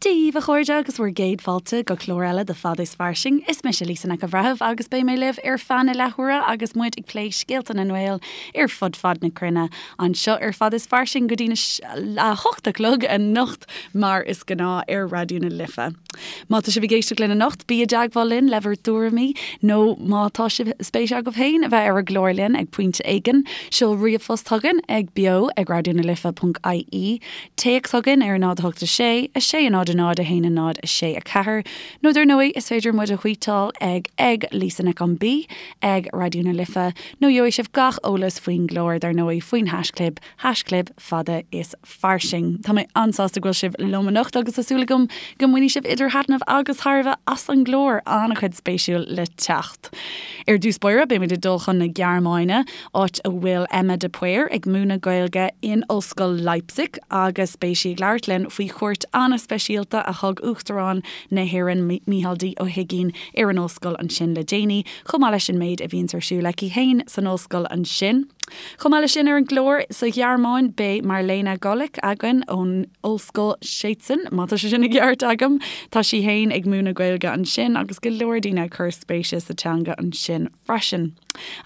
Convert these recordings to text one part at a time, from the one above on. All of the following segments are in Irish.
Dia dhaoibh a chairde agus bhur gcéad fáilte go clár eile de Fada is Fairsing. Is mise Lisa Nic an Bhreithimh agus beidh mé libh ar feadh na leathuaire agus muid ag plé scéalta na nGael ar fud fad na cruinne anseo ar Fada is Fairsing go dtí a 8 a chlog anocht mar is gnáth ar Raidió na Life. Má tá sibh ag éisteacht linn anocht, bí i dteagmháil linn le bhur dtuairimí nó má tá sibh spéis agaibh féin a bheith ar an gclár linn ag pointe éigin, seol ríomhphost chugainn ag beo ag raidionalife.ie. Téacs chugainn ar 0 8 6 6 0 0 1 0 6 4 nó dar ndóigh is féidir muid a thvuíteáil ag ag Lisa Nic an B ag Raidió na Life nó gheobhaidh sibh gach eolas faoin gclár dar ndóigh faoin haischlib haischlib fada is fairsing. Tá mé an-sásta go bhfuil sibh liom anocht agus tá súil agam go mbainfidh sibh idir thaitneamh agus thairbhe as an gclár, an-chuid spéisiúil le teacht. Ar dtús báire beimid ag dul chun na Gearmáine, áit a bhfuil Emma de Paor ag múineadh Gaeilge in Ollscoil Leipzig agus beidh sí ag labhairt linn faoi chuairt an-speisialta a thug Uachtarán na hÉireann Mícheál D. Ó hUigínn ar an ollscoil ansin le déanaí, chomh maith leis an méid a bhíonns ar siúl aici féin san ollscoil ansin. Chomh maith leis sin ar an gclár sa Ghearmáin beidh Marlene Golik againn ón Ollscoil Szczecin, má tá sé sin i gceart agam. Tá sí féin ag múineadh Gaeilge ansin agus go leor daoine ag cur spéise sa teanga ansin freisin.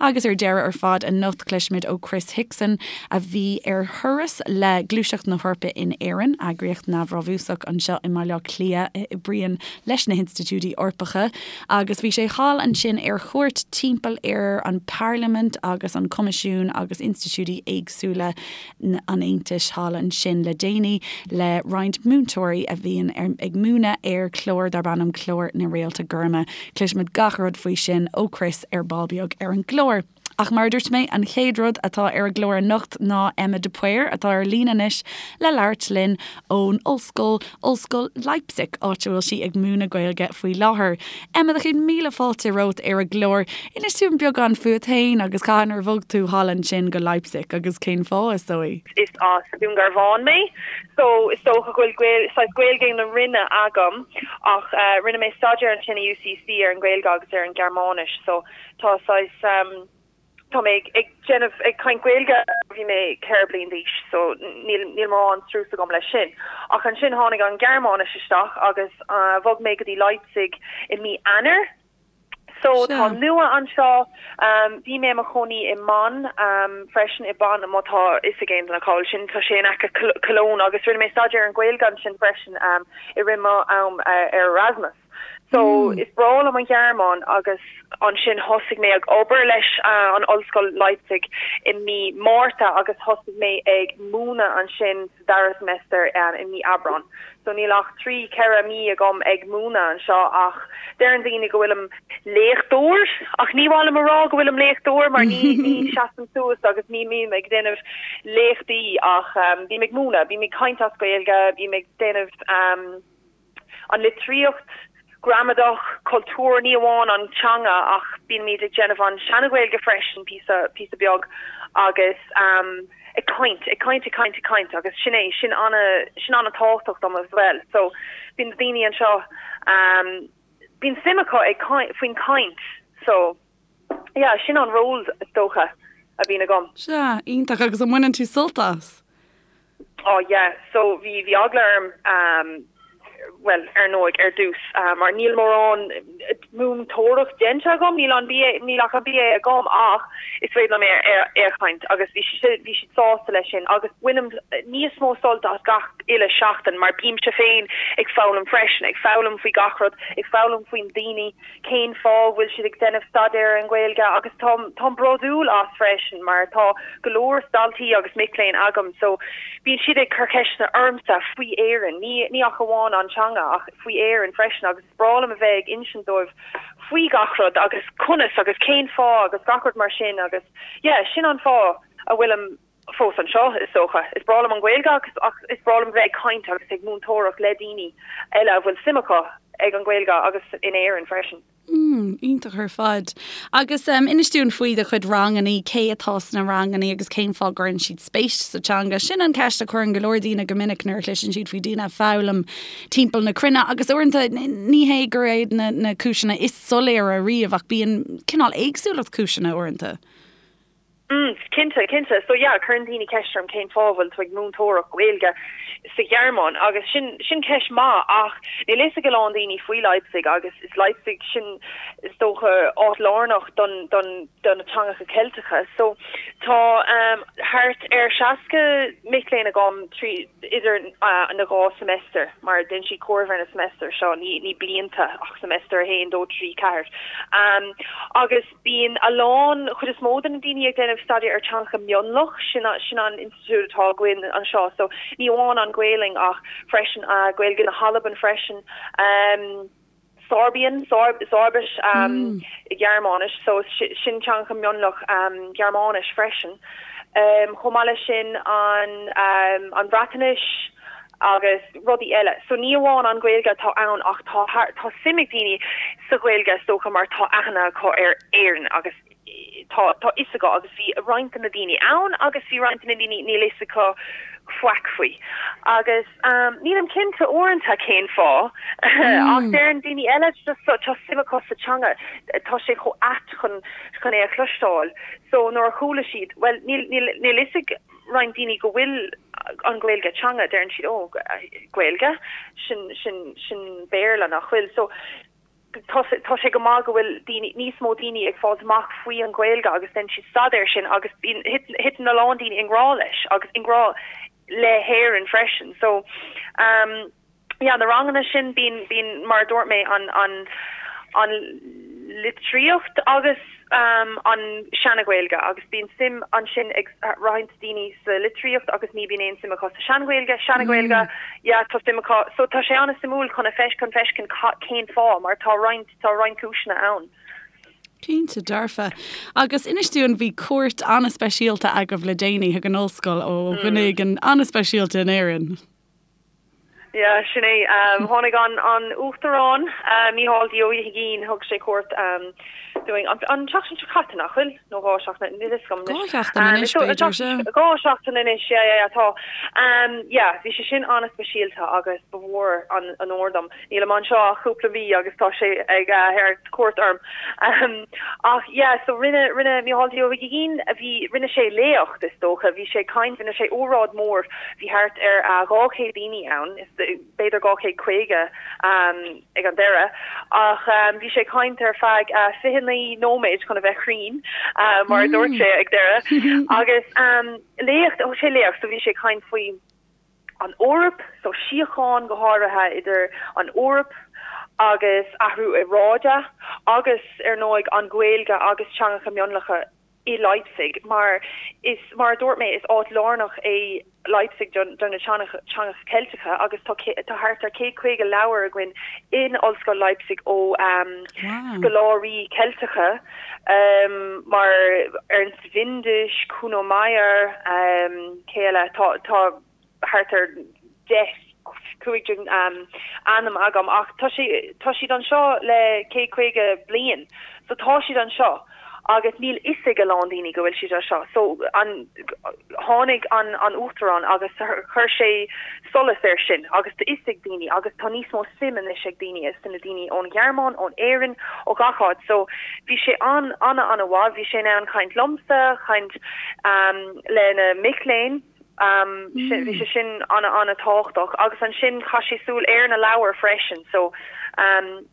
Agus ar deireadh ar fad anocht cloisfimid ó Chris Hickson a bhí ar thuras le Gluaiseacht na hEorpa in Éirinn, eagraíocht neamhbhrabúsach anseo i mBaile Átha Cliath a oibríonn leis na hinstitiúidí Eorpacha agus bhí sé thall ansin ar chuairt timpeall ar an bParlaimint agus an Coimisiún agus institiúidí éagsúla an Aontais thall ansin le déanaí le roinnt múinteoirí a bhíonn ag múineadh ar chlár darb ainm Clár na Réalta Goirme. Cloisfimid gach rud faoi sin ó Chris ar ball beag ar an gclár. Ach mar a dúirt mé, an chéad rud atá ar an gclár anocht ná Emma de Paor, atá ar líne anois le labhairt linn ón ollscoil, Ollscoil Leipzig, áit a bhfuil sí ag múineadh Gaeilge faoi láthair. Emma, do chéad míle fáilte romhat ar an gclár. Inis dúinn beagán fút féin agus cathain ar bhog tú thall ansin go Leipzig agus cén fáth, is dóigh? Is as Dún Garbhán mé so is dócha go bhfuil saghas Gaeilge na Rinne agam ach rinne mé staidéar ansin i UCC ar an Ghaeilge agus ar an Ghearmáinis so tá saghas Tá mé ag déanamh, ag caint Gaeilge ó bhí mé 4 bliain d'aois so níl níl mórán strus agam leis sin. Ach ansin tháinig an Ghearmáinis isteach agus bhog mé go dtí Leipzig i mí Eanáir. So tá nua anseo. Bhí mé i mo chónaí i mBonn freisin, i Bonn má tá fhios ag aon duine cá bhfuil sin, tá sé in aice Cologne agus rinne mé staidéar ar an Ghaeilge ansin freisin i rith mo am ar Erasmus. So is breá liom an Ghearmáin agus ansin thosaigh mé ag obair leis an Ollscoil Leipzig i mí Márta agus thosaigh mé ag múineadh ansin sa dara semester i mí Aibreán. So níl ach 3, 4 mí agam ag múineadh anseo ach deireann daoine go bhfuilim léachtóir ach ní mhaith liom a rá go bhfuilim léachtóir mar ní ní seasaim suas agus ní bhím ag déanamh léachtaí ach bím ag múineadh, bím ag caint as Gaeilge, bím ag déanamh an litríocht, gramadach, cultúr, ní amháin an teanga ach bímid ag déanamh an seana-Ghaeilge freisin píosa, píosa beag agus ag caint, ag caint, ag caint, ag caint agus sin é, sin ana, sin ana-tábhachtach dom as well. So bíonn na daoine anseo, bíonn suim acu ag caint, faoin caint so yeah, sin an ról is dócha a bhíonn agam. Sea, iontach agus an mbaineann tú sult as? Oh yeah, so bhí bhí eagla orm um bhuel ar ndóigh ar dtús mar níl mórán múinteoireacht déanta agam, níl an BA níl ach an BA agam ach is féidir liom é é a chaint agus bhí siad bhí siad sásta leis sin agus bainim níos mó sult as gach uile seachtain mar bímse féin ag foghlaim freisin, ag foghlaim faoi gach rud, ag foghlaim faoin daoine cén fáth a bhfuil siad ag déanamh staidéar ar an Ghaeilge agus táim táim bródúil as freisin mar tá go leor daltaí agus mic léinn agam so bíonn siad ag cur ceisteanna ormsa faoi Éirinn, ní ní ach amháin an teanga ach faoi Éirinn freisin agus is breá liom a bheith ag insint dóibh faoi gach rud agus conas agus cén fáth agus gach rud mar sin agus yeah sin an fáth a bhfuilim fós anseo, is dócha. Is breá liom an Ghaeilge agus ach is breá liom bheith ag caint agus ag múinteoireacht le daoine eile a bhfuil suim acu ag an Ghaeilge agus in Éirinn freisin. Mm, iontach ar fad. Agus um, inis dúinn faoi do chuid rangannaí, cé atá sna rangannaí agus cén fáth gcuireann siad spéis sa teanga. Sin an ceist a chuireann go leor daoine go minic nuair a chloiseann siad faoi daoine ag foghlaim timpeall na cruinne agus uaireanta ní hé gur iad na, na cúiseanna is soiléire riamh ach bíonn cineál éagsúlacht cúiseanna uaireanta. Mm, cinnte, cinnte. So yeah, cuireann daoine ceist orm cén fáth a bhfuil tú ag múinteoireacht Gaeilge. sa Ghearmáin agus sin sin ceist maith ach níl fhios ag a lán daoine faoi Leipzig agus is Leipzig sin is dócha áit lárnach don don do na teangacha Ceilteacha so tá um, thart ar 60 mic léinn agam trí idir uh, na dhá semester mar déanann siad comhaireamh ar na semester seo ní ní blianta ach semester 1 2 3 4 um, agus Bíonn a lán, chuid is mó de na daoine ag déanamh staidéar ar teangacha mionlach, sin sin an institiúid atá againn anseo, so ní amháin an Ghaelainn ach freisin Gaeilge na hAlban freisin, Sorbian, Sorbis i Gearmáinis, so sin teangacha mionlach Gearmáinis freisin. Chomh maith leis sin an an Bhreatnais, agus rudaí eile. So ní amháin an Ghaeilge atá ann ach tá tá suim ag daoine sa Ghaeilge is dócha mar tá aithne acu ar Éirinn agus tá tá fhios acu agus bhí roinnt de na daoine ann agus bhí roinnt de na daoine níl fhios acu faic faoi. Agus um, nílim cinnte uaireanta cén fáth ach deireann daoine eile just tá suim acu sa teanga tá sé chomh ait chun chun é a chloisteáil. So nuair a chuala siad, well níl níl níl fhios ag roinnt daoine go bhfuil an Ghaeilge teanga, deireann siad, ó, Gaeilge, sin, sin, sin Béarla nach bhfuil. So, tá, tá sé go maith go bhfuil daoine, níos mó daoine ag fáilt amach faoi an Ghaeilge agus déanann siad staidéar sin agus bíonn, thiteann a lán daoine i ngrá leis agus i ngrá le hÉirinn freisin. So, um, yeah, na ranganna sin, bíonn, bíonn, mar a dúirt mé, an, an, an litríocht agus um, an seana-Ghaeilge agus bíonn suim ansin ag roinnt daoine sa litríocht agus ní bíonn aon suim acu sa sean-Ghaeilge, seana-Ghaeilge, mm. yeah, tá suim acu. So tá sé an-suimiúil chun a feis, chun feiscint cén fáth mar tá roinnt, tá roinnt cúiseanna ann. Cinnte dearfa. Agus inis dúinn, bhí cuairt an-speisialta agaibh le déanaí chuig an ollscoil ó dhuine éigin an-speisialta in Éirinn. Yeah, sin é. Tháinig an an Uachtarán, Mícheál D. Ó hUigínn, thug sé cuairt dúinn an an tseachtain seo caite, nach bhfuil? Nó 2 seachtain, níl fhios agam anois. 2 sheachtain anois, b'fhéidir, sea. 2 seachtain anois, yeah, yeah, yeah, tá. Yeah, bhí sé sin an-speisialta agus ba mhór an onóir dom. Nílim anseo ach cúpla mí agus tá sé ag thabhairt cuairt orm. Ach yeah, so rinne, rinne Mícheál D. Ó hUigínn, bhí, rinne sé léacht is dócha, bhí sé ag caint, rinne sé óráid mór, bhí thart ar 200 daoine ann, is b'fhéidir 250 ag an deireadh, ach bhí sé ag caint ar feadh 29 nóiméad chun a bheith cruinn, mar a dúirt sé ag deireadh. Agus léacht, thug sé léacht, so bhí sé ag caint faoi, an Eoraip, so síocháin go háirithe idir an Eoraip agus athrú aeráide agus ar ndóigh an Ghaeilge agus teangacha mionlacha i Leipzig mar is mar a dúirt mé is áit lárnach é Leipzig do na teangacha Ceilteacha agus tá tá thart ar 150 leabhar againn in Ollscoil Leipzig ó scoláirí Ceilteacha mar Ernst Windisch, Kuno Meyer, cé eile? Tá tá thart ar 10, 15 ainm agam ach tá sé tá siad anseo le 150 bliain so tá siad anseo agus níl fhios ag a lán daoine go bhfuil siad anseo. So an tháinig an an Uachtarán agus chuir sé solas air sin agus tá fhios ag daoine agus tá níos mó suim anois ag daoine is na daoine ón Ghearmáin, ón Éirinn, ó gach áit. So bhí sé an an an-mhaith, bhí sé in ann caint liomsa, caint le na mic léinn, bhí sé sin an an-tábhachtach agus ansin chaith sé súil ar na leabhair freisin. So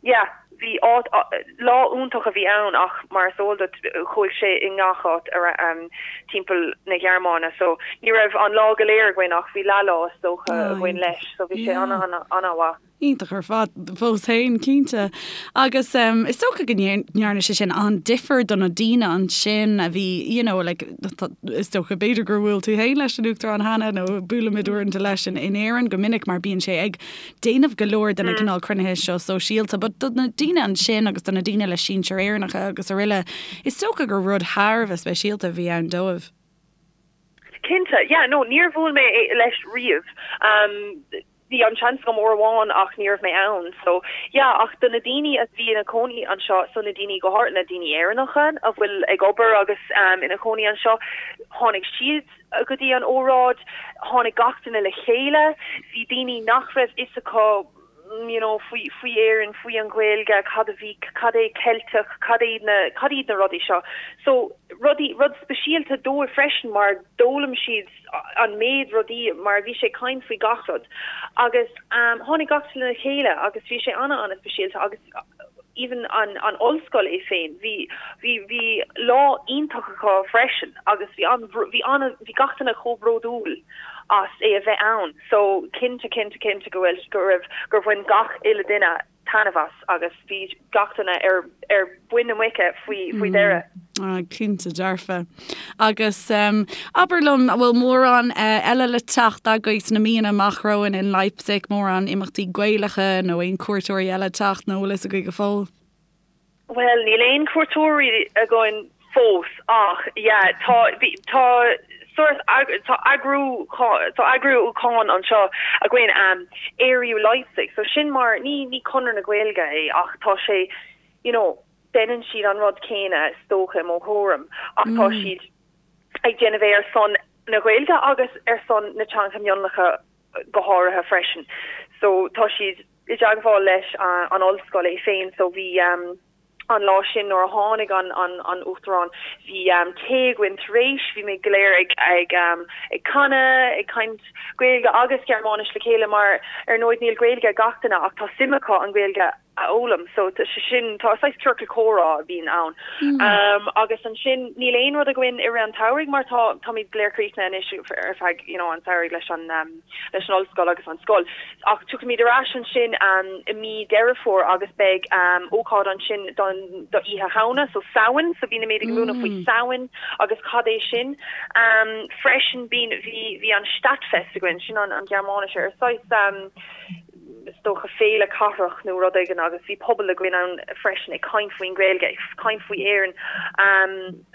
yeah. Bhí áit, lá iontach a bhí ann ach mar is eol duit chuaigh sé i ngach áit timpeall na Gearmáine so ní raibh an lá go léir againn ach bhí leath lá is dócha againn leis so bhí sé an-an-an-mhaith. Iontach ar fad fós féin, cinnte. Agus is dócha go ndearna sé sin an-difear do na daoine ansin a bhí, you know, like, is dócha b'fhéidir gur bhuail tú féin leis an Uachtarán cheana nó buailimid uaireanta leis in Éirinn go minic mar bíonn sé ag déanamh go leor de na cineál cruinnithe seo sóisialta, but do na daoine ansin agus do na daoine le sinsir Éireannacha agus araile, is dócha gur rud thar a bheith speisialta a bhí ann dóibh. Cinnte, yeah, no, níor bhuail mé leis riamh. Um, bhí an seans agam uair amháin ach ní raibh mé ann. So, yeah, ach do na daoine a bhí ina cónaí anseo, so na daoine go háirithe na daoine Éireannacha a bhfuil ag obair agus um, ina cónaí anseo, tháinig siad go dtí an óráid, tháinig gach duine le chéile, bhí daoine nach raibh fhios acu. you know, faoi, faoi Éirinn, faoi an Ghaeilge, cad a bhí, cad é Ceilteach, cad iad na, cad iad na rudaí seo. So, rudaí, rud speisialta dóibh freisin mar d'fhoghlaim siad an méid rudaí mar bhí sé ag caint faoi gach rud. Agus um, tháinig gach duine le chéile agus bhí sé ana, ana speisialta agus even an, an ollscoil é féin, bhí, bhí, bhí lá iontach acu freisin agus bhí an, bhí ana, bhí gach duine chomh bródúil as é a bheith ann. So, cinnte, cinnte, cinnte go bhfuil, go raibh, gur bhain gach uile duine taitneamh as agus bhí gach duine ar, ar mhuin na muice faoi, faoi dheireadh. Ah, cinnte dearfa. Agus abair liom, an bhfuil mórán eile le teacht agaibh sna míonna amach romhainn in Leipzig, mórán imeachtaí Gaelacha nó aon cuairteoirí eile ag teacht nó an bhfuil fhios agaibh go fóill? Bhuel, níl aon cuairteoirí againn fós ach yeah, tá, bhí, tá sórt, tá eagrú, tá eagrúchán anseo againn, um, Ériu Leipzig, so sin mar, ní, ní Conradh na Gaeilge é ach tá sé, you know, deineann siad an rud céanna is dócha i mo thuairim ach tá siad ag déanamh é ar son na Gaeilge agus ar son na teangacha mionlacha go háirithe freisin. So tá siad i dteagmháil leis an ollscoil é féin so bhí an lá sin nuair a tháinig an an an Uachtarán bhí tae againn tar éis, bhí muid go léir ag ag ag canadh, ag caint Gaeilge agus Gearmáinis le chéile mar ar ndóigh níl Gaeilge ag gach duine ach tá suim acu an Ghaeilge a fhoghlaim. So tá sé sin, tá saghas ciorcal comhrá a bhíonn ann. Agus ansin níl aon rud againn i rith an tsamhraidh mar tá, táimid go léir críochnaithe anois ar feadh, you know, an tsamhraidh leis an, leis an ollscoil agus an scoil. Ach tiocfaimid ar ais ansin i mí Deireadh Fómhair agus beidh ócáid ansin don, do Oíche Shamhna, so Samhain, so bímid ag múineadh faoi Samhain agus cad é sin. Freisin bíonn, bhí, bhí an Stadtfest againn, sin an, an Ghearmáinis ar saghas, is dócha féile cathrach nó rud éigin agus bhí pobal againn ann freisin ag caint faoin Ghaeilge, ag caint faoi Éirinn.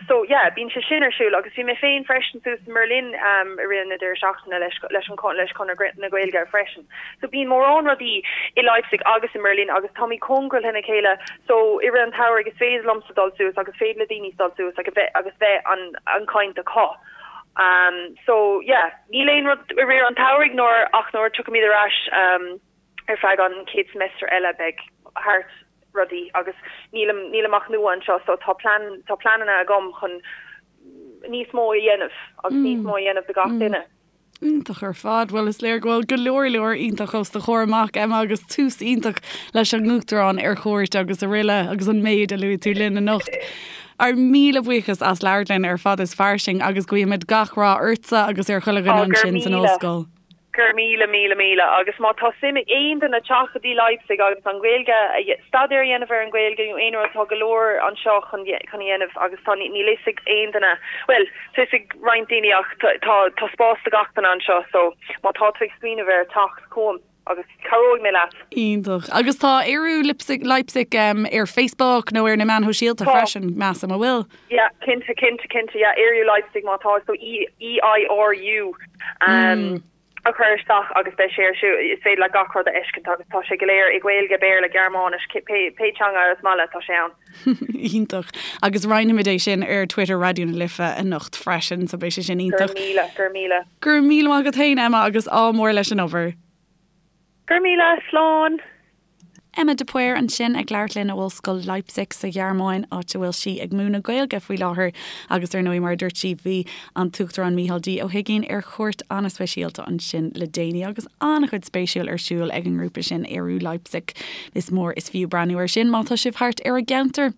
So yeah, bíonn sé sin ar siúl agus bhí mé féin freisin suas i mBerlin i rith na deireadh seachtaine leis leis an leis Conradh na Gaeilge freisin. So bíonn mórán rudaí i Leipzig agus i mBerlin agus táimid cóngarach lena chéile so i rith an tsamhraidh is féidir liomsa dul suas agus féidir le daoine dul suas agus bheith agus bheith an an caint acu. Um so yeah, níl aon rud i rith an tsamhraidh nuair ach nuair a tiocfaimid ar ais um ar feadh an chéad semester eile beidh thart rudaí agus nílim nílim ach nua anseo so tá plean tá pleananna agam chun níos mó a dhéanamh agus níos mó a dhéanamh do gach duine. Iontach ar fad. Bhuel, is léir go bhfuil go leor leor iontach os do chomhair amach, Emma, agus tús iontach leis an Uachtarán ar chuairt agus araile agus an méid a luaigh tú linn anocht. Ár míle buíochas as labhairt linn ar Fad is Fairsing agus guímid gach rath ortsa agus ar chuile dhuine ansin san ollscoil. Go raibh míle, míle, míle. Agus má tá suim ag aon duine teacht go dtí Leipzig agus an Ghaeilge, staidéar a dhéanamh ar an Ghaeilge nó aon rud, tá go leor anseo chun a dhéanamh agus tá, níl fhios ag aon duine, bhuel, tá fhios ag roinnt daoine ach tá, tá spás do gach duine anseo so má tá tú ag smaoineamh air teacht chugam agus cabhróidh mé leat. Iontach. Agus tá Ériu Leipzig, Leipzig ar Facebook nó ar na meáin shóisialta freisin, measaim, an bhfuil? Yeah, cinnte, cinnte, cinnte, yeah, Ériu Leipzig má tá, so E, E-I-R-U um, a chur isteach agus beidh sé ar siúl, is féidir leat gach rud a fheiscint agus tá sé go léir i Gaeilge, Béarla, Gearmáinis, pé, pé teanga is maith leat, tá sé ann. Iontach. Agus roinnfimid é sin ar Twitter Raidió na Life anocht freisin, so beidh sé sin iontach. Go raibh míle, go raibh míle. Go raibh míle maith agat féin, Emma, agus ádh mór leis an obair. Go raibh míle, slán! Emma de Paor ansin ag labhairt linn ó Ollscoil Leipzig sa Ghearmáin, áit a bhfuil sí ag múineadh Gaeilge faoi láthair agus ar ndóigh mar a dúirt sí bhí an tUachtarán Micheál D Ó hUigínn ar chuairt an-speisialta ansin le déanaí agus an-chuid spéisiúil ar siúl ag an ngrúpa sin Ériu Leipzig. Is mór is fiú breathnú air sin má tá sibh thart ar an gceantar.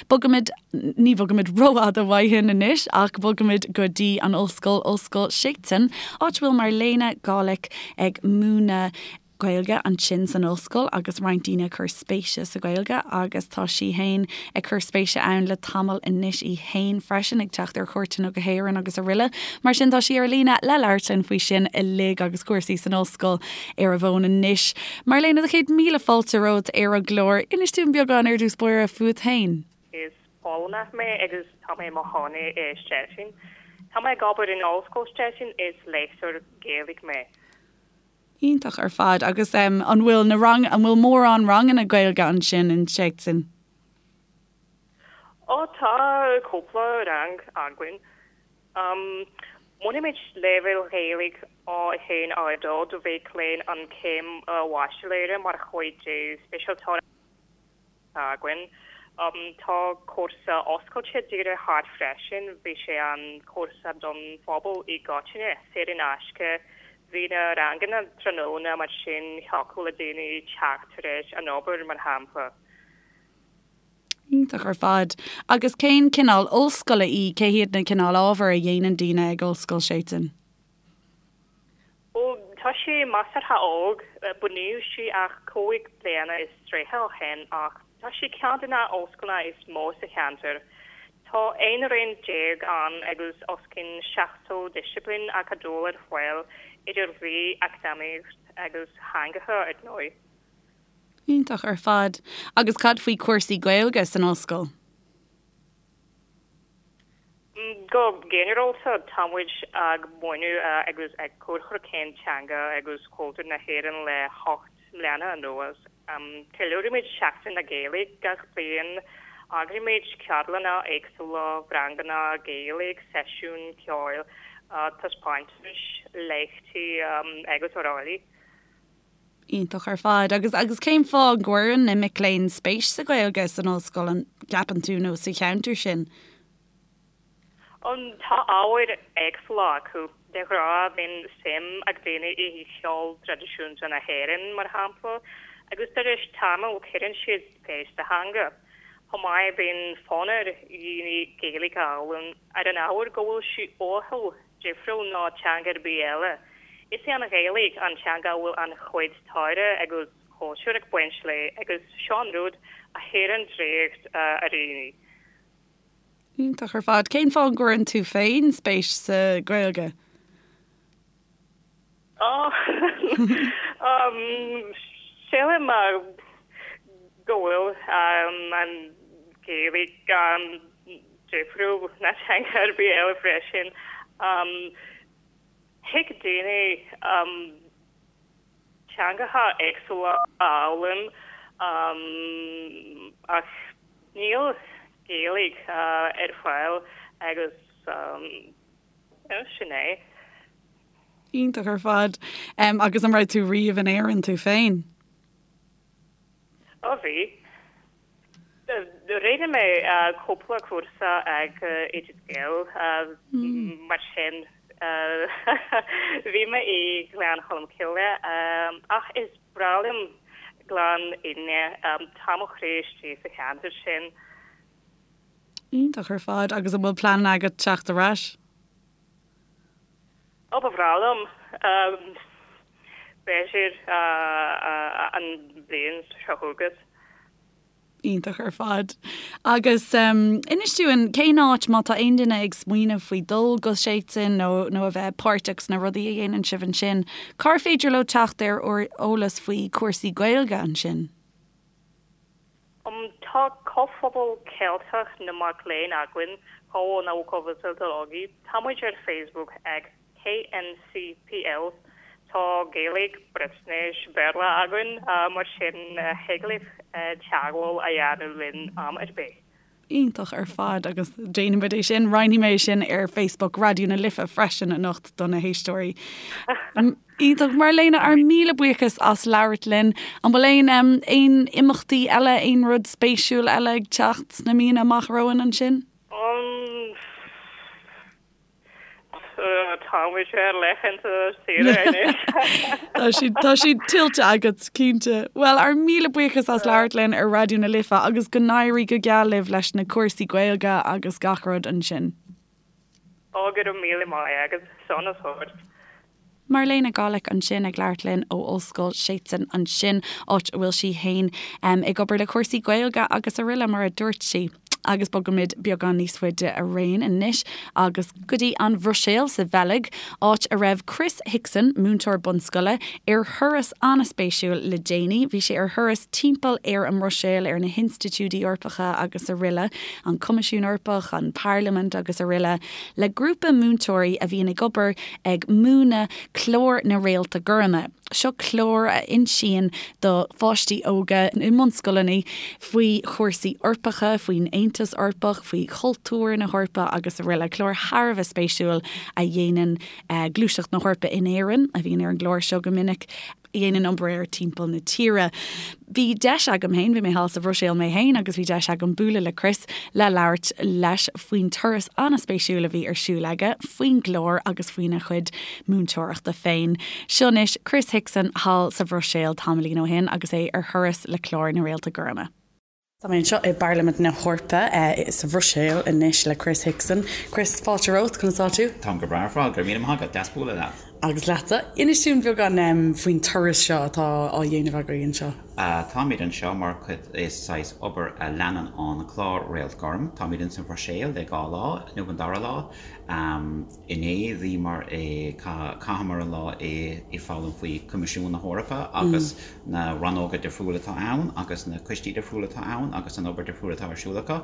Bogaimid, ní bhogaimid rófhada uaidh anois ach bogaimid go dtí an ollscoil, Ollscoil Szczecin, áit a bhfuil Marlene Gawlik ag múineadh Gaeilge ansin san ollscoil agus roinnt daoine ag cur spéise sa Ghaeilge agus tá sí fhéin ag cur spéise ann le tamall anois í fhéin freisin ag teacht ar chuairteanna go hÉirinn agus araile. Mar sin tá sí ar líne le labhairt linn faoi sin uilig agus cúrsaí san ollscoil ar an bhfón anois. Marlene, do chéad míle fáilte romhat ar an gclár. Inis dúinn beagán ar dtús báire fút fhéin. Is Polannach mé agus tá mé i mo chónaí i Szczecin. Tá mé ag obair in Ollscoil Szczecin, is léachtóir Gaeilge mé. Iontach ar fad. Agus an bhfuil na rang, an bhfuil mórán ranganna Gaeilge ansin in Szczecin? Ó tá cúpla rang againn. Múinimid leibhéal Ghaeilge. A1, A2 do mhic léinn an chéim bhaitsiléara mar chuid de speisialtóireacht againn. Tá cúrsa oscailte díreach thart freisin, bhí sé an cúrsa don phobal i gcoitinne, saor in aisce. Bhí na ranganna tráthnóna mar sin thiocfadh le daoine teacht tar éis an obair, mar shampla. Iontach ar fad. Agus cén cineál ollscoile í? Cé hiad na cineál ábhar a dhéanann daoine ag Ollscoil Seton? Ó, tá sé measartha óg. Bunaíodh sí ach 35 bliana ó shin ach tá sí ceann de na ollscoileanna is mó sa cheantar. Tá 11 roinn ann agus os cionn 70 disciplín acadúil ar fáil, idir dhlí, eacnamaíocht agus theangacha, ar ndóigh. Iontach ar fad. Agus cad faoi chúrsaí Gaeilge san ollscoil? Go ginearálta, tá muid ag múineadh agus ag cur chun cinn teanga agus cultúr na hÉireann le hocht mbliana anuas. Ceiliúraimid Seachtain na Gaeilge gach bliain, eagraímid ceardlanna éagsúla, ranganna Gaeilge, seisiúin ceoil, taispeántais, léachtaí agus araile. Iontach ar fad. Agus agus cén fáth an gcuireann na mic léinn spéis sa Ghaeilge san ollscoil, an gceapann tú, nó sa cheantar sin? Tá ábhair éagsúla acu. De ghnáth bíonn suim ag daoine i cheol traidisiúnta na hÉireann, mar shampla, agus tar éis tamaill cuireann siad spéis sa theanga. Chomh maith bíonn fonn ar dhaoine Gaeilge a fhoghlaim ar an ábhar go bhfuil sí uathúil difriúil ná teanga ar bith eile. Is í an Ghaeilge an teanga a bhfuil an-chuid staire agus cultúir ag baint léi agus seo an rud a chuireann draíocht ar dhaoine. Iontach ar fad. Cén fáth an gcuireann tú féin spéis sa Ghaeilge? Sílim go bhfuil an Ghaeilge difriúil ná teanga ar bith eile freisin. Thig daoine teangacha éagsúla a fhoghlaim ach níl Gaeilge ar fáil agus sin é. Iontach ar fad. Agus an raibh tú riamh in Éirinn tú féin? Ó bhí. Rinne mé cúpla cúrsa ag Oideas Gael mar sin bhí mé i Gleann Cholm Cille ach is breá liom Gleann Fhinne, tá mo chroí istigh sa cheantar sin. Iontach ar fad. Agus an bhfuil pleananna agat teacht ar ais? Ó, ba bhreá liom. B'fhéidir an bhliain seo chugat. Iontach ar fad. Agus inis dúinn, cén áit, má tá aon duine ag smaoineamh faoi dul go Seton nó nó a bheith páirteach sna rudaí a dhéanann sibh ansin, cár féidir leo teacht ar eolas faoi chúrsaí Gaeilge ansin? Tá Comhphobal Ceilteach na Mac Léinn againn, Koło Naukowe Celtologii. Tá muid ar Facebook ag KNCPL. Tá Gaeilge, Breatnais, Béarla againn, mar sin thig libh teagmháil a dhéanamh linn am ar bith. Iontach ar fad agus déanfaimid é sin, roinnfidh mé é sin ar Facebook Raidió na Life freisin anocht do na héisteoirí. Iontach Marlena, ár míle buíochas as labhairt linn. An bhfuil aon aon imeachtaí eile, aon rud spéisiúil eile ag teacht sna míonna amach romhainn ansin? Tá muid ar laethanta saoire anois. Tá siad tá siad tuillte agat, cinnte. Bhuel, ár míle buíochas as labhairt linn ar Raidió na Life agus go n-éirí go geal libh leis na cúrsaí Gaeilge agus gach rud ansin. Ó, go raibh míle maith agat. Sonas ort. Marlena Gawlik ansin ag labhairt linn ó Ollscoil Seton ansin, áit a bhfuil sí fhéin ag obair le cúrsaí Gaeilge agus araile mar a dúirt sí. Agus bogaimid beagán níos faide araon anois agus go dtí an Bhruiséil sa Bheilg, áit a raibh Chris Hickson, múinteoir bunscoile, ar thuras an-spéisiúil le déanaí. Bhí sé ar thuras timpeall ar an mBruiséil, ar na hinstitiúidí Eorpacha agus araile, an Coimisiún Eorpach, an Parlaimint agus araile, le grúpa múinteoirí a bhíonn ag obair ag múineadh Clár na Réalta Goirme. Seo clár a insíonn do pháistí óga i mbunscoileanna faoi chúrsaí Eorpacha, faoin Aontas Eorpach, faoi chultúr na hEorpa agus araile. Clár thar a bheith spéisiúil a dhéanann Gluaiseacht na hEorpa in Éirinn, a bhíonn ar an gclár seo go minic. a dhéanann obair air timpeall na tíre. Bhí deis agam féin, bhí mé thall sa Bhruiséil mé féin agus bhí deis agam bualadh le Chris le labhairt leis faoin turas an-spéisiúil a bhí ar siúl aige, faoin gclár agus faoina chuid múinteoireachta féin. Seo anois Chris Hickson thall sa Bhruiséil tamaillín ó shin agus é ar thuras le clár na Réalta Gorma. Tá mé anseo i bParlaimint na hEorpa sa Bhruiséil anois le Chris Hickson. Chris, fáilte romhat, conas tá tú? Táim go breá ar fad, go raibh míle maith agat, deas bualadh leat. Agus leatsa. Inis dúinn beagán faoin turas seo atá á dhéanamh agaibh anseo. Táimid anseo mar chuid de saghas obair a leanann an clár Réalt Gorm. Táimid ins an Bhruiséil le dhá lá, inniu an dara lá. Inné bhíomar i, chaitheamar an lá i foghlaim faoi Coimisiún na hEorpa agus na rannóga difriúla atá ann agus na coistí difriúla atá ann agus an obair difriúil atá ar siúl acu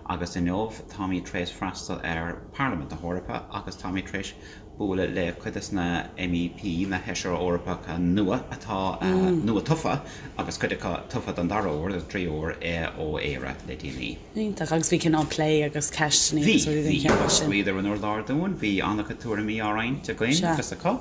agus inniu táimid tar éis freastal ar Parlaimint na hEorpa agus táimid tar éis bualadh le cuid des na MEP, na Feisirí Eorpacha nua atá nua tofa agus cuid acu tofa don dara huair, don tríú huair ó Éire le déanaí. Iontach. Agus bhí cineál plé agus ceisteanna agus rudaí den chineál sin. Bhí, bhí. Bhíodar an urlár dúinn, bhí an-chuid tuairimí á roinnt againn agus acu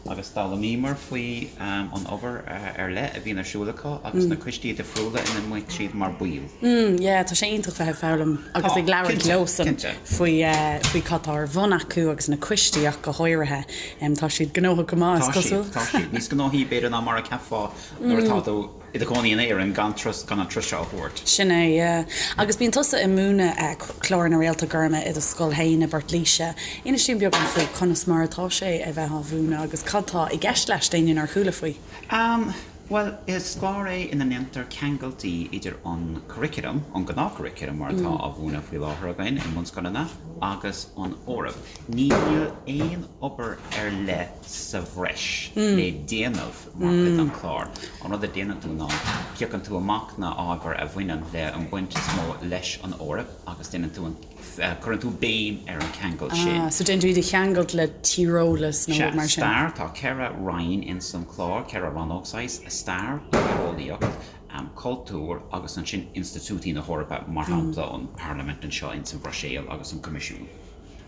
agus d'fhoghlaimíomar faoi an obair ar leith a bhíonn ar siúl acu agus na coistí difriúla ina mbíonn siad mar baill. Mm, yeah, tá sé iontach bheith ag foghlaim agus ag labhairt leosan faoi faoi cad tá ar bun acu agus na coistí ach go háirithe. Tá siad gnóthach go maith, is cosúil. Tá siad, tá siad. Níos gnóthaí b'fhéidir ná mar a cheapfá nuair atá tú i do chónaí in Éirinn gan turas, gan an turas seo a thabhairt. Sin é, yeah. Agus bíonn tusa ag múineadh clár na Réalta Gorma i do scoil féin i bPort Laoise. Inis dúinn beagán faoi conas mar atá sé a bheith á mhúineadh agus cad tá i gceist leis d'éinne nár chuala faoi. Am, Bhuel, is clár é ina ndéantar ceangailtí idir an curriculum, an gnáth-churriculum mar atá á mhúineadh faoi láthair againn i mbunscoileanna, agus an Eoraip. Níl aon obair ar leith sa bhreis le déanamh mar chuid den chlár. An rud a déanann tú ná piocann tú amach na ábhair a bhaineann le an baint is mó leis an Eoraip agus déanann tú an, cuireann tú béim ar an cheangal sin. Ah, so déanann tú iad a cheangailt le tíreolas nó rud mar sin. Sea, stair, tá 4 roinn ins an chlár, 4 rannóg saghas, stair, tíreolaíocht, cultúr agus ansin institiúidí na hEorpa, mar shampla an Parlaimint anseo ins an Bhruiséil agus an Coimisiún.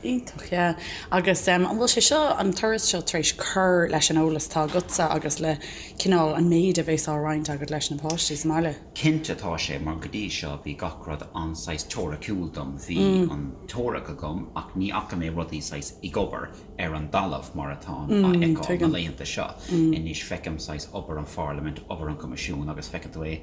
Iontach, yeah. Agus an bhfuil sé seo, an turas seo tar éis cur leis an eolas atá agatsa agus le cineál an méid a bhéas á roinnt agat leis na páistí sa mbaile? Cinnte tá sé, mar go dtí seo bhí gach rud an-saghas teoiriciúil dom, bhí an teoiric agam ach ní fhaca mé rudaí saghas ag obair ar an dtalamh mar atáim á fheiceáil na laethanta seo. Anois feicim saghas obair an Pharlaimint, obair an Choimisiúin agus feiceann tú é,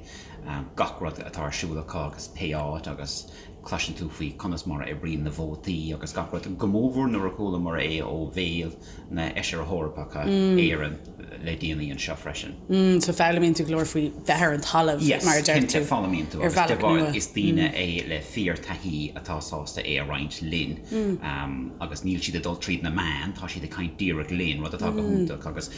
gach rud atá ar siúl acu agus pé áit agus Cloiseann tú faoi conas mar a oibríonn na vótaí agus gach rud, go mórmhór nuair a chualamar é ó bhéal na Fheisirí Eorpacha Éireann le déanaí anseo freisin. So foghlaimíonn tú go leor faoi bheith ar an talamh, mar a deir tú, Yes, cinnte, foghlaimíonn tú agus de bharr is daoine é le fíor-taithí atá sásta é a roinnt linn agus níl siad ag dul tríd na meáin, tá siad ag caint díreach linn, rud atá go hiontach agus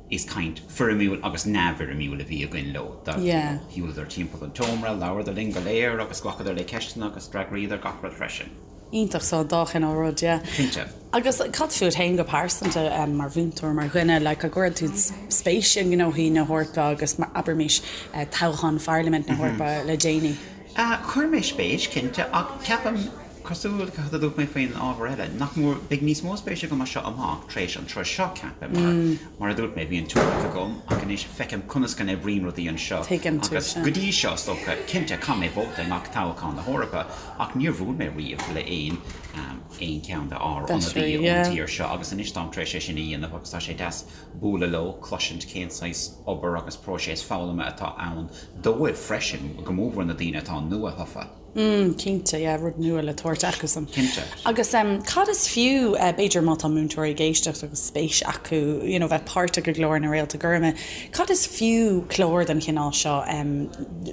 Is caint foirmiúil agus neamhfhoirmiúil a bhí againn leo. Shiúladar timpeall an tseomra, labhradar linn go léir agus ghlacadar le ceisteanna agus d'fhreagraíodar gach rud freisin. Iontach, so an dá chineál rud, yeah. Cinnte. Agus cad fút féin go pearsanta, mar mhúinteoir, mar dhuine, like, an gcuireann tú spéis i ngnóthaí na hEorpa agus, abraimis, toghchán Pharlaimint na hEorpa le déanaí? Chuir mé spéis, cinnte, ach ceapaim, cosúil le cad a dúirt mé faoin ábhar eile, nach mór, beidh níos mó spéise agam as seo amach tar éis an turas seo, ceapaim, mar, mar a dúirt mé, bhí an teoiric agam ach anois feicim conas go n-oibríonn rudaí anseo agus go dtí seo, is dócha, cinnte, chaith mé vóta i ngach toghchán na hEorpa ach níor bhuail mé riamh le aon, aon cheann de ár n-ionadaí ón tír seo agus anois táim tar éis é sin a dhéanamh agus tá sé deas bualadh leo, cloisint cén saghas obair agus próiseas foghlama atá ann dóibh freisin, go mórmhór na daoine atá nua-thofa. Mm, cinnte, yeah, rud nua le tabhairt acusan. Cinnte. Agus cad is fiú, b'fhéidir má tá múinteoirí ag éisteacht agus spéis acu, you know, bheith páirteach i gclár na Réalta Goirme, cad is fiú clár den chineál seo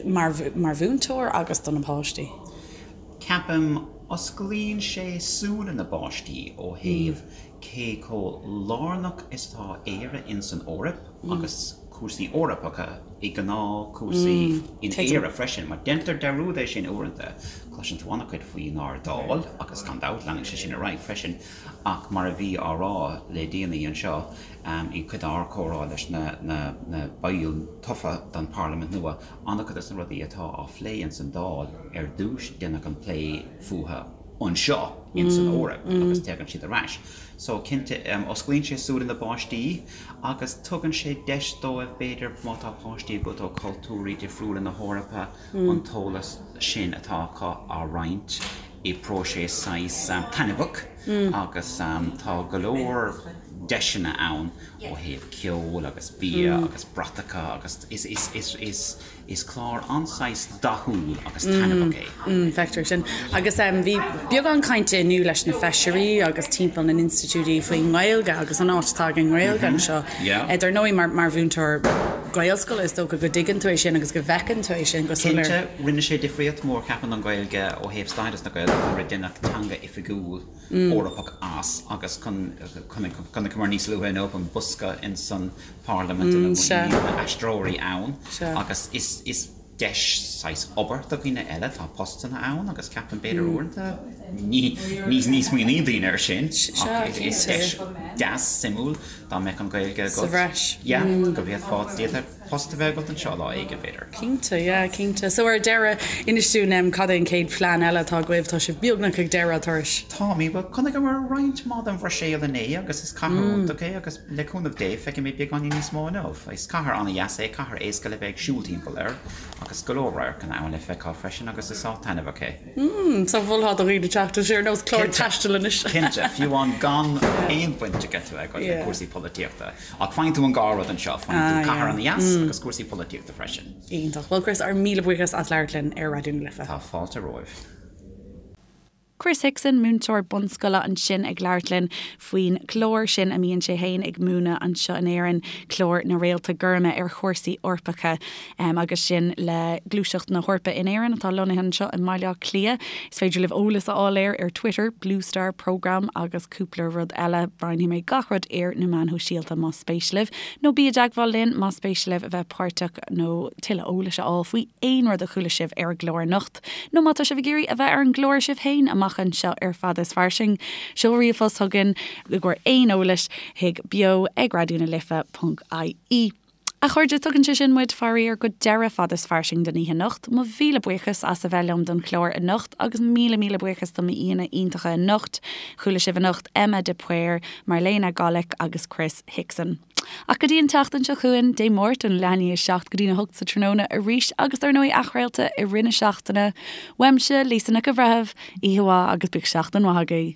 mar, mar mhúinteoir agus do na páistí? Ceapaim, osclaíonn sé súile na bpáistí ó thaobh cé chomh lárnach is atá Éire ins an Eoraip agus. cúrsaí Eorpacha i ngnáthchúrsaí in Éire freisin, mar déantar dearúd é sin uaireanta. Cloiseann tú an-chuid faoinár Dáil agus gan dabht leanann sé sin ar aghaidh freisin ach mar a bhí á rá le déanaí anseo i gcuid dár comhrá leis na baill tofa don Pharlaimint nua, an-chuid de na rudaí atá á phlé ins an Dáil ar dtús déanadh an plé fúthu anseo ins an Eoraip agus tagann siad ar ais. So cinnte osclaíonn sé súile na bpáistí agus tugann sé deis dóibh b'fhéidir má tá páistí agat ó chultúirí difriúla na hEorpa an t-eolas sin atá acu á roinnt i bpróiseas saghas taitneamhach agus tá go leor deiseanna ann ó thaobh ceoil agus bia agus bratacha agus is is is is Is clár an-saghas dathúil agus taitneamhach é. Feictear sin. Agus bhí beagán cainte inniu leis na feisirí agus timpeall na n-institiúidí faoin nGaeilge agus an áit atá ag an nGaeilge anseo. Dar ndóigh, mar mhúinteoir Gaelscoile, is dócha go dtuigeann tú é sin agus go bhfeiceann tú é sin go soiléir. Cinnte, rinne sé difríocht mhór, ceapaim, don Ghaeilge ó thaobh stádas na Gaeilge nuair a deineadh teanga oifigiúil Eorpach as agus chonaiceamar níos luaithe inniu an bosca ins an Parlaimint ina bhfuil na haistreoirí ann agus is deis saghas obair do dhaoine eile, tá postanna ann agus ceapaim b'fhéidir uaireanta ní ní smaoiníonn daoine air sin ach is deis deas suimiúil dá mbeadh an Ghaeilge agat. Sa bhreis. Yeah, go bhféadfá, d'fhéadfadh post a bheith agat anseo lá éigin, b'fhéidir. Cinnte, yeah, cinnte. So ar deireadh, inis dúinn em cad é an chéad phlean eile atá agaibh? Tá sibh beagnach ag deireadh an turais. Táimid, bhuel, chonaiceamar roinnt mhaith den Bhruiséil inné agus is cathair iontach é agus le cúnamh Dé feicfidh mé beagáinín níos mó inniu. Is cathair an-dheas é, cathair éasca le bheith ag siúl timpeall air agus go leor radharcanna ann le feiceáil freisin agus is áit taitneamhach é. Mm, so mholfá do dhaoine teacht, tá sé ar nós clár taistil anois. Cinnte, fiú amháin gan aon bhaint agat a bheith agat le cúrsaí polaitíochta. Ach faigheann tú an dhá rud anseo, faigheann tú cathair ana-dheas agus cúrsaí polaitíochta freisin. Iontach. Bhuel Chris, ár míle buíochas as labhairt linn ar Raidió na Life. Tá fáilte romhaibh. Chris Hickson, múinteoir bunscoile ansin ag labhairt linn faoin chlár sin a mbíonn sé féin ag múineadh anseo in Éirinn, clár na Réalta Goirme ar chúrsaí Eorpacha agus sin le Gluaiseacht na hEorpa in Éirinn atá lonnaithe anseo i mBaile Átha Cliath. Is féidir libh eolas a fháil air ar Twitter, Blue Star Programme agus cúpla rud eile. Roinnfidh mé gach rud ar na meáin shóisialta más spéis libh. Nó bí i dteagmháil linn más spéis libh a bheith páirteach nó tuilleadh eolais a fháil faoi aon rud a chuala sibh ar an gclár anocht. Nó má tá sibh ag iarraidh a bheith ar an gclár sibh féin amach anseo ar Fada is Fairsing, seol ríomhphost chugainn i gcomhair aon eolais chuig beo ag raidió na life ponc ie. A chairde, tugann sé sin muid, faraor, go deireadh Fada is Fairsing don oíche anocht. Mo mhíle buíochas as a bheith liom don chlár anocht agus míle míle buíochas do m'aíonna iontacha anocht. Chuala sibh anocht Emma de Paor, Marlena Golec agus Chris Hickson. Ach go dtí an tseachtain seo chugainn, Dé Máirt ón leath i ndiaidh a 7 go dtí'n 8 sa tráthnóna arís agus dar ndóigh athchraolta i rith na seachtaine. Uaimse, Lisa Nic an Bhreithimh, oíche mhaith agus bíodh seachtain mhaith agaibh.